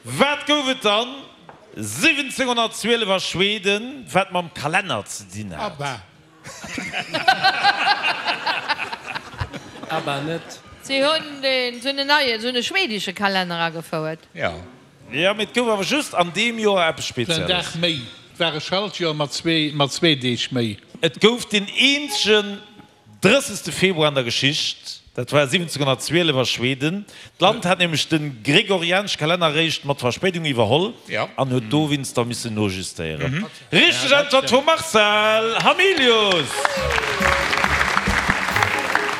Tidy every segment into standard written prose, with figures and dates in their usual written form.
Wat gouf et dann 1712 a Schweden, wat mam Kalenner ze dinn hat? Abba. Abba net. Si hunn deen, si hunn en neien, si hunn e schwedesche Kalenner agefouert. Jo, mee et gouf awer just an deem Joer eppes Spezielles. En Dag méi. Et war e Schaltjoer mat zwee Deeg méi. Et gouf deen eenzegen 30. Februar an der Geschicht, dat war 1712 a Schweden. D'Land hat nämlech de gregorianesche Kalenner eréischt mat Verspéidung iwwerholl an huet dowéinster missen nojustéieren. Richteg Äntwert vum Marcel Hamilius!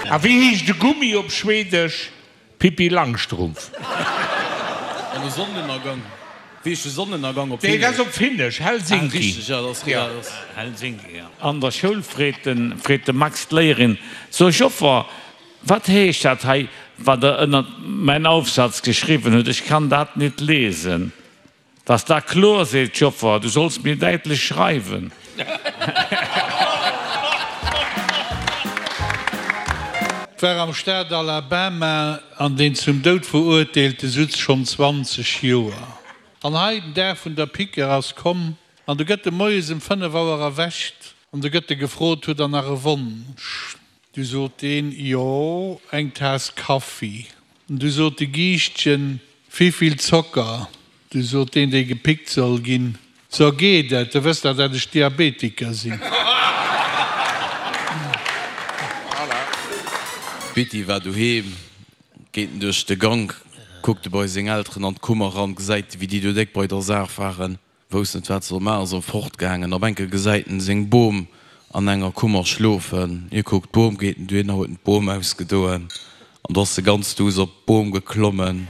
A wéi heescht e Gummi op Schwedesch? Pippi Langstrumpf. An de Sonnenënnergang. Wéi heescht de Sonnenënnergang op Nee, Finnesch? dat ass op Finnesch, Helsinki. Ah, richteg, jo, dat ass, ja, dat ass. Helsinki, jo. An der Schoul freet de, freet de Max d'Léierin, So Joffer, wat heescht dat hei, wat Der ënnert mäin Aufsatz geschriwwen hutt? Ech kann dat nit lesen. Dass da kloer, seet d'Joffer, du solls mir däitlech schreiwen. Et war am Staat Alabama an deen zum Doud Verurteelte sutz schonn 20 Joer. An hei, den Dag vun der Piquer ass komm an du gëtt e moies em 5 Auer erwächt an du gëtt e gefrot, Hutt der nach e Wonsch? Du sot deen, Jo, eng Taass Kaffi. Du sot de Giischtjen, Wivill Zocker? Du sot deen, dee gepickt soll ginn, So geet et, du wëss dach, dat ech Diabetiker sinn. D'Bitty war doheem, geet en duerch de Gank, kuckt e bei seng Elteren an d'Kummer ran, gesäit e wéi déi do déck bei der Saach waren. Wousst net wat soll maachen, ass erëm fortgaangen. Op enke gesäit en seng Bom an enger Kummer schlofen. Hie kuckt d'Bom, geet en dohinner, huet en d'Bom ausgedoen an do ass e ganz duuss op d'Bom geklommen.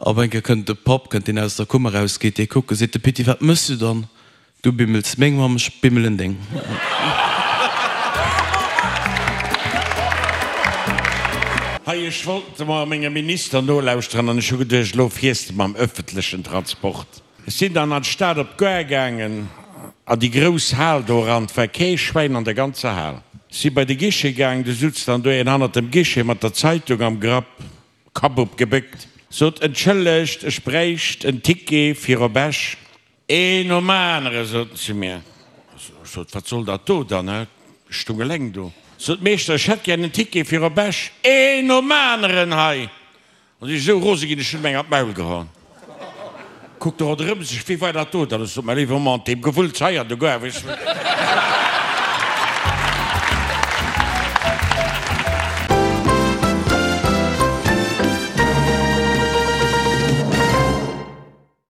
Op enke kënnt de Papp, kënnt deen aus der Kummer raus, geet dee kucken, seet de Pitti, wat mëss du dann? Du bimmels meng Mamm, ech bimmelen deng. Hei, ech wollt emol mengem Minister nolauschteren an ech hu geduecht, elo fiers de mam öffentlechen Transport. Ech sinn dann an d'Stad op d'Gare gaangen, an déi grouss Hal do eran. 't war kee Schwäin an der ganzer Hal. Ech si bei de Guichet gaangen, du sutz dann do een hannert dem Guichet mat der Zeitung am Grapp, Kapp op gebéckt, sot, Entschëllegt, ech bräicht en Ticket fir op Esch. Een nom anere, sot en zu mir. Ech sot, Wat soll dat do dann, hä? Ech stung eleng do. Sot, Meeschter, ech hätt gär en Ticket fir op Esch. Een nom aneren hei! An si esou rose ginn, ech hunn em eng an d'Maul gehaen. Kuckt e ronderëm sech, Wee war dat do dann? Ech sot, Mäi léiwe Mann, deem Gewulls hei an de Goar, weess du.